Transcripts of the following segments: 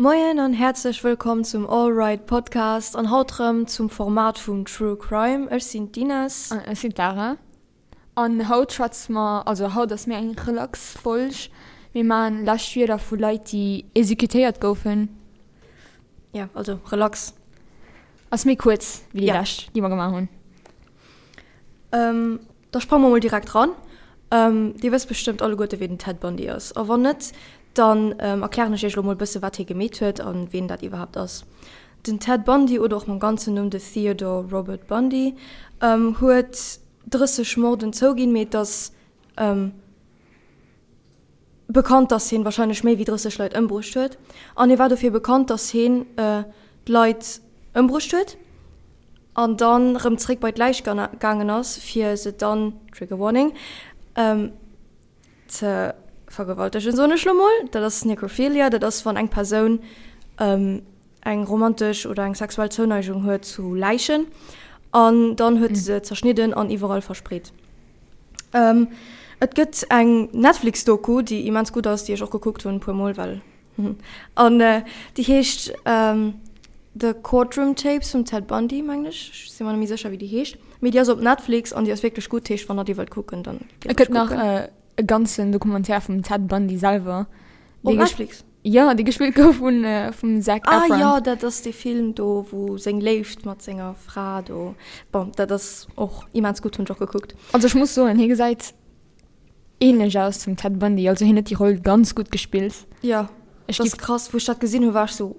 Moien an häerzlech wëllkomm zum All Right Podcast an haut rëm zum Format vum True Crime. Ech sinn d'Ines. An ech sinn d'Lara. An haut schwätze mer, also haut ass méi eng relax Folg. Mir maachen lescht Wierder vu Leit déi exekutéiert goufen. Ja, also relax. Ass méi kuerz wéi déi lescht, déi mer gemaach hunn. Da sprange mer mol direkt ran. Dir wësst bestëmmt alleguerte wien den Ted Bundy ass. A wann net, dann erklären ech iech elo mol bësse wat hie gemeet huet a wien dat iwwerhaapt ass. Den Ted Bundy oder och mam ganzen Numm de Theodore Robert Bundy huet 30 Morden zouginn, mee et ass bekannt, dass hien wahrscheinlech méi wéi 30 Leit ëmbruecht huet. An hie war dofir bekannt, dass hien d'Leit ëmbruecht huet an dann rëm zréck bei d'Läich gaangen ass, fir se dann, Trigger Warning, ze vergewaltegen, soen ech lo mol. Dat ass Necrophilia, dat ass wann eng Persoun eng romantesch oder eng sexuell Zouneigung huet zu Läichen an dann huet se zerschnidden an iwwerall verspreet. Et gëtt eng Netflix-Doku, déi immens gutt ass, déi ech och gekuckt hunn e puer Mol, well an déi heescht The Courtroom Tapes vum Ted Bundy, mengen ech. Ech si mer net méi sécher, wéi déi heescht, mee déi ass op Netflix an déi ass wierklech gutt. Heescht, wann der déi wëllt kucken, dann gitt Et gëtt nach e ganzen Documentaire vum Ted Bundy selwer. Op Netflix? Jo, dee gespillt gouf vun vum Zac Efron. Ah jo, dat ass dee Film do, wou seng Léift mat senger Fra do. Bon, dat ass och immens gutt, hunn ech och gekuckt. Also ech muss soen, hie gesäit ähnlech aus zum Ted Bundy, also hien huet déi Roll ganz gutt gespillt. Jo, dat ass krass. Wou ech dat gesinn hu war ech sou,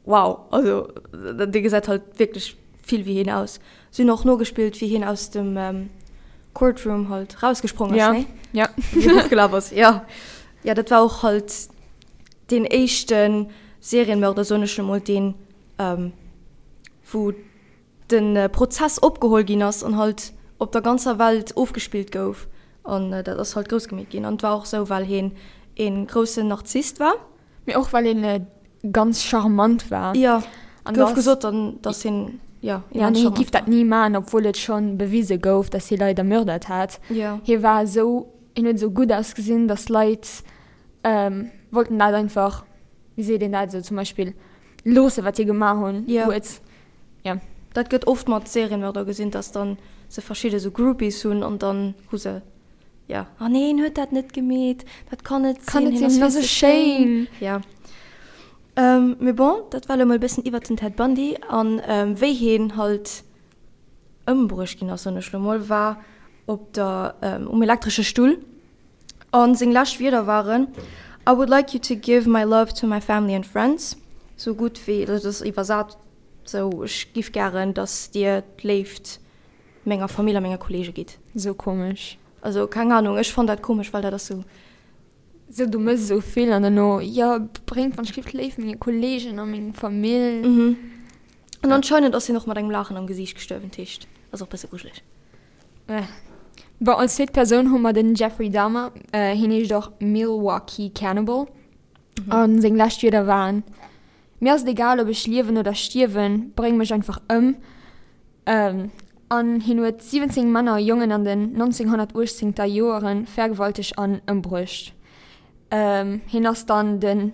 Wow, also dee gesäit halt wierklech vill wéi hien aus. Si hunn och nogespillt, wéi hien aus dem Courtroom halt rausgesprong ass, nee? Ja. Wéi hien fortgelaf ass, ja. Ja, dat war och halt deen éischte Serienmörder, soen ech emol, deen, wou de Prozess opgeholl ginn ass an halt op der ganzer Welt ofgespillt gouf. An dat ass halt grouss gemeet ginn. An et war och sou, well hien ee groussen Narzisst war. Mee och well een ganz charmant war. Jo, gouf gesot dann, dass hien, jo, immens charmant war. Hie giff dat ni maachen, obwuel et schonn bewise gouf, dass hie Leit ermördert hat. Jo. Hie war esou, hien huet esou gutt ausgesinn, dass Leit wollten dat einfach, wéi seet een dat, esou zum Beispill loosse wat hie gemaach hunn, huet. Jo. Dat gëtt oft mat Serienmörder gesinn, dass dann se verschidde sou Groupies hunn an dann hu se. Ja. Ah nee, hien huet dat net gemeet. Dat kann net sinn. Kann net sinn, hien ass esou schéin. Ja. Ähm, mee bon, dat war elo mol e bëssen iwwert den Ted Bundy an wéi hien halt ëmbruecht ginn ass, soen ech elo mol, war op der, um elektresche Stull. An seng lescht Wierder waren, I would like you to give my love to my family and friends. Sou gutt wéi, dat ass iwwersat, sou, ech giff gären, dass dir d'Léift menger Famill a menge Kollege gitt. Sou komesch. Also keng Ahnung, ech fann dat komesch, well dat ass sou. Sou du mëss esou vill an duerno, jo bréngt wann ech giff d'Léift menge Kollegen a meng Famill. Mhm. An anscheinend ass hien och mat engem Laachen am Gesiicht gestuerwen, dat heescht ass och bësse grujeleg. Bon, als zweet Persoun hu mer den Jeffrey Dahmer, hien heescht och Milwaukee Cannibal an seng lescht Wierder waren, Mir ass et egal ob ech liewen oder stierwen, bréng mech einfach ëm. An hien huet 17 Männer a Jongen an den 1918 ter Joere vergewaltegt an ëmbruecht. Hien ass dann den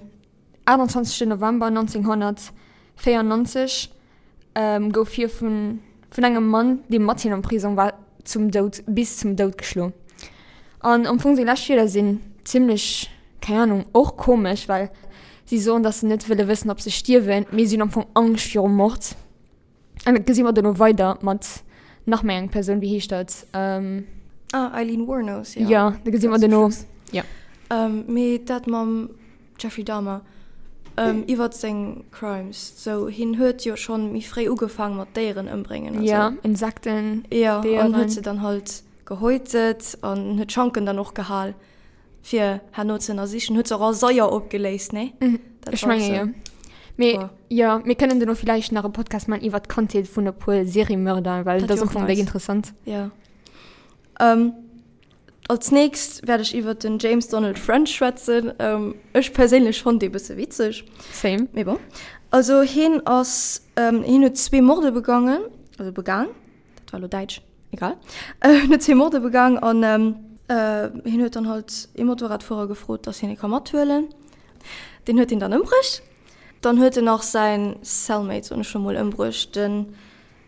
28 November 1994 gouf hie vun vun engem Mann, dee mat him am Prisong war, zum Doud bis zum Doud geschloen. An am Fong seng lescht Wierder sinn zimmlech, keng Ahnung, och komesch, well si soen, datt se net wëlle wëssen, ob se stierwen, mee si hunn am Fong Angscht virum Mord. An dat gesi mer dono weider mat nach méi eng Persoun, wéi heescht dat? Ähm, ah, Eileen Wuornos, ja. Ja, da gesi mer dono. Ja. Ähm, mee dat mam Jeffrey Dahmer, ähm, iwwert seng Crimes, sou hien huet jo schonn méi fréi ugefaang mat Déieren ëmbréngen an sou. Ja, Insekten, Déieren. Ja, an huet se dann halt gehäutet an huet d'Schanken dann och gehal. Fir herno ze ënnersichen. Huet se och a Saier opgeléist, nee? Mhm. Dat Ech menge jo. Mee jo, mir kënnen duerno villäicht nach e Podcast man iwwer d'Kandheet vun e puer Seriemörder, well dat ass am Fong déck interessant. Ja. Ähm, als nächst wäert ech iwwer den James Donald French schwätzen. Ähm, ech perséinlech fonnt dee bësse witzeg. Same. Mee bon. Also hien ass, ähm, hien huet zwee Morde begangen, also begaang. Dat war lo däitsch. Egal. Hien huet zwee Morde begaang an hien huet dann halt ee Motorradfuerer gefrot, dass hien e ka mathuelen. Deen huet hien dann ëmbruecht. Dann huet en nach säin Cellmate, soen ech scho mol, ëmbruecht, den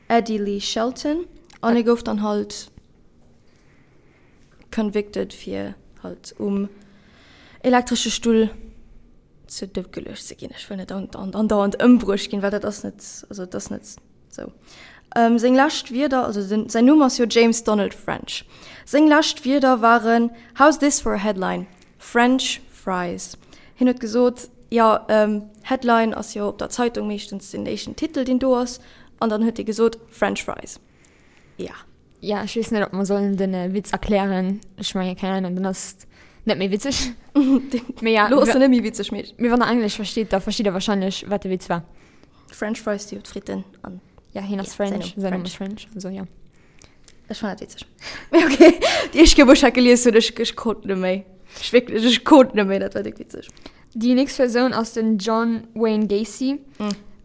Eddie Lee Shelton. An e gouf dann halt convicted fir halt um elektresche Stull zu Doud geluecht ze ginn. Ech wëll net andauernd ëmbruecht ginn, well dat ass net, also dat ass net sou. Seng lescht Wierder, also den, säin Numm ass jo James Donald French. Seng lescht Wierder waren, How's this for a headline? French fries. Hien huet gesot, jo, Headline ass jo op der Zeitung meeschtens den éischten Titel, deen do ass, an dann huet hie gesot, French fries. Ja. Ja, ech weess net, ob mer sollen den Witz erklären. Ech mengen, keng Ahnung, dann ass et net méi witzeg. Mee ja, Lo ass en net méi witzeg, mee. Mee wann der Englesch versteet, da versteet der wahrscheinlech, wat de Witz war. French fries si jo d'Fritten an. Ja, hien ass French, säin Numm ass French, also ja. Ech fannen dat witzeg. Mee okay, déi éischt Kéier, wou ech dat gelies hunn, ech, ech konnt net méi. Ech wierklech, ech konnt net méi, dat war déck witzeg. Déi nächst Persoun ass den John Wayne Gacy.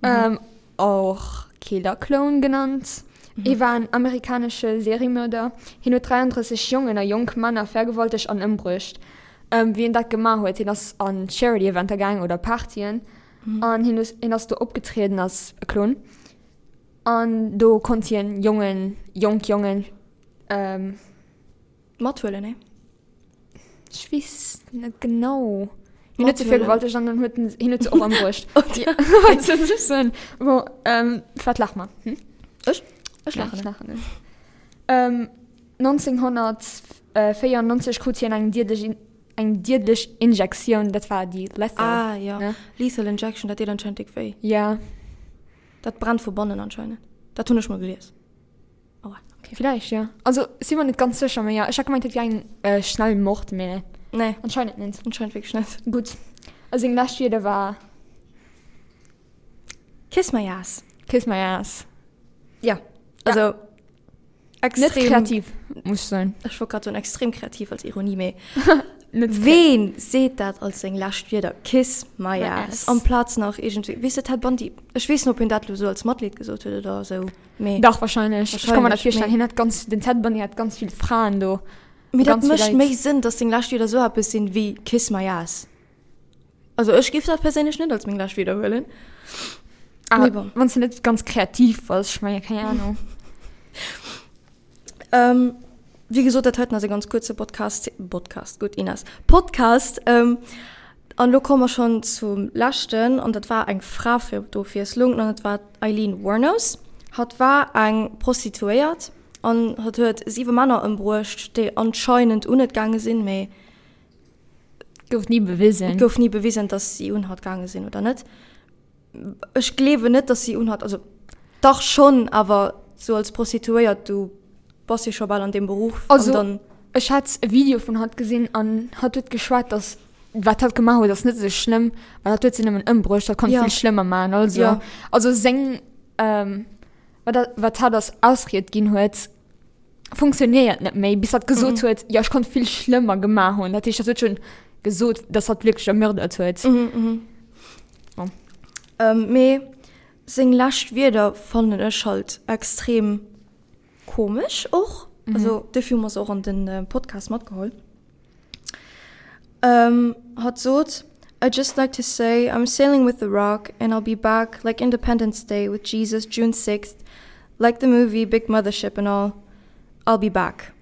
Mm. Och Killer Clown genannt. Hie war en amerikanesche Seriemörder. Hien huet 33 Jongen a jonk Männer vergewaltegt an ëmbruecht. Wéi en dat gemaach huet, hien ass an Charity-Eventer gaang oder Partyen an hien hien ass do opgetrieden als e Clown. An do konnt hien Jongen, jonk Jongen. Mathuelen, nee? Ech weess net genau. Hien huet se vergewaltegt an dann huet en, hien huet se och ëmbruecht. Wat soll ech soen? Bon, ähm, wat laache mer? Hm? Ech? Ech laachen net. Ech laachen net. Ähm, 1994 krut hien eng diedlech, eng diedlech Injektioun, dat war déi Lethal. Ah, ja. Ne? Lethal Injection, dat deet anscheinend déck wéi. Ja. Dat brennt vu bannen anscheinend. Dat hunn ech mol gelies. Aua, okay. Vielleicht, ja. Also, si mer net ganz sécher, mee ja, ech hat gemengt, dat wier eng äh, schnell Mord, mee Nee. anscheinend net. Anscheinend wierklech net. Gutt. A seng lescht Wierder war. Kiss my ass. Kiss my ass. Ja, also. Ja. Extrem, net kreativ, muss ech soen. Ech wollt grad soen, extrem kreativ als Ironie, mee. Ween seet dat als seng lescht Wierder? Kiss my ass. Amplaz nach iergendwéi, weess de, Ted Bundy, ech weess net, ob hien dat elo sou als Matleed gesot huet oder sou. Mee Dach, wahrscheinlech. Ech kann mer dat virstellen. Hien hat ganz, den Ted Bundy hat ganz vill Fraen do. Mee dat mécht méi Sënn, dass seng lescht Wierder sou eppes sinn wéi Kiss my ass. Also ech géif dat perséinlech net als meng lescht Wierder huelen. Ah, Mee bon. Wann s de net ganz kreativ bass, ech mengen, keng Ahnung. Ähm, wéi gesot, dat heiten ass e ganz kuerze Podcast, Podcast, gutt Ines, Podcast. Ähm, an elo komme mer schonn zum leschten, an dat war eng Fra fir d'Ofwiesslung, an dat war d'Aileen Wuornos. Hatt war eng Prostituéiert an hatt huet siwe Männer ëmbruecht, déi anscheinend un et gaange sinn, mee Gouf ni bewisen. Et gouf ni bewisen, dass si un hatt gaange sinn oder net. Ech gleewen net, dass si un hatt, also dach schonn, awer sou als Prostituéiert, du bass jo scho bal an deem Beruff. Also an dann, ech hat e Video vun hatt gesinn an hatt huet geschwat, dass wat hatt gemaach huet ass net esou schlëmm, well hatt huet se nëmmen ëmbruecht, hatt konnt ja. vill schlëmmer maachen. Also, ja. also seng ähm, wat, wat hatt als Ausried ginn huet, funktionéiert net méi, bis hatt gesot mhm. huet, ja ech konnt vill schlëmmer gemaach hunn. Dat heescht, hatt huet schon gesot, dass hatt wierklech ermördert huet. Mhm, mhm. Oh. Ähm, mee seng lescht Wierder fannen ech halt extrem komesch och. Mhm. Also dofir hu mer se och an den äh, Podcast matgeholl. Ähm, hatt sot, I just like to say I'm sailing with the rock and I'll be back like Independence Day with Jesus June 6th, like the movie Big Mothership and all. I'll be back.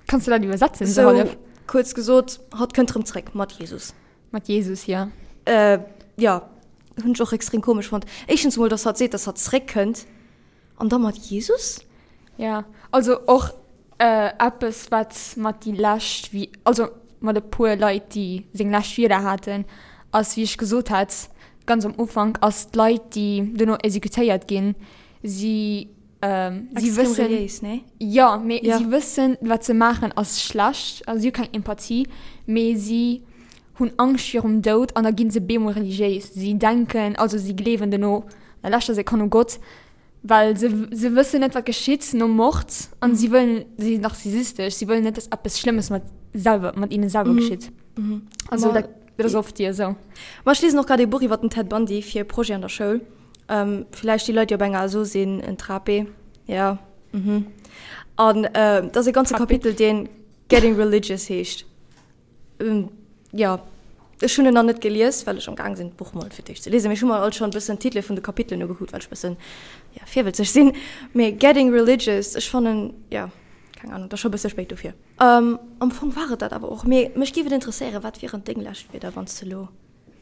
Kanns du dat iwwersetzen? So, hallef? kuerz gesot, hatt kënnt rëm zréck mat Jesus. Mat Jesus, ja. Äh, ja, hunn ech och extrem komesch fonnt. Éischtens emol, dass hatt seet, dass hatt zréckkënnt. An da mat Jesus? Ja, also och äh, eppes, wat mat déi lescht, wéi, also mat e puer Leit, déi seng lescht Wierder haten, ass, wéi ech gesot hat, ganz am Ufank, ass d'Leit, déi dono exekutéiert ginn, si, ähm, si Extrem wëssen, reliéis, nee? jo, mee Ja. si wëssen, wat se maachen, ass schlecht, also si hu keng Empathie, mee si hunn Angscht virum Doud an da ginn se bemol religiéis. Si denken, also si gleewen dono an der leschter Sekonn u Gott, well se se wëssen net wat geschitt nom Mord an si wëllen, si sinn narzisistesch, si wëllen net dass eppes Schlëmmes mat selwer mat hinnen selwer geschitt. Also dat dat ass oft déi esou. Ma ech liesen och grad ee Buch iwwer den Ted Bundy fir e Projet an der Schoul. Villäicht déi Leit déi op enger ASO sinn, en Trape, ja, mhm. An dat ass e ganze Kapitel deen Getting Religious heescht. Ähm, ja. Ech hunn en nach net gelies, well ech am Gaang sinn, d'Buch mol fir d'éischt ze liesen. Mee ech hu mer alt schonn e bëssen d'Titele vun de Kapitelen ugekuckt, well ech e bëssen, ja, virwëtzeg sinn. Mee Getting Religious, ech fannen, ja, keng Ahnung, et ass scho e bësse spéit dofir. Am Fong war et dat awer och. Mee mech géif et interesséieren, wat wieren deng lescht Wierder, wann s de elo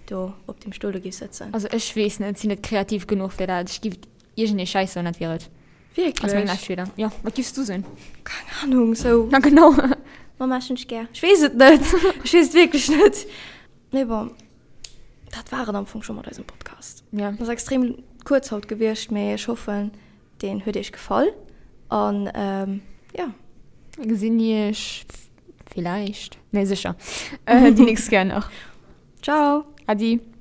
do op deem Stull do géifs sëtzen? Also ech weess net, sinn net kreativ genuch fir dat. Ech géif iergendee Schäiss soen, dat wier et. Wierklech? Als meng lescht Wierder. Jo, wat giffs du soen? Keng Ahnung, sou. Na genau. Mama, ech hunn dech gär. Ech weess et net. Ech weess et wierklech net. Mee bon, dat war et am Fong scho mat eisem Podcast. Ja. Ass extrem kuerz haut gewiescht, mee ech hoffen, deen huet iech gefall. An jo. Mir gesinn iech villäicht, nee sécher, déi nächst Kéier nach. Ciao. Adi.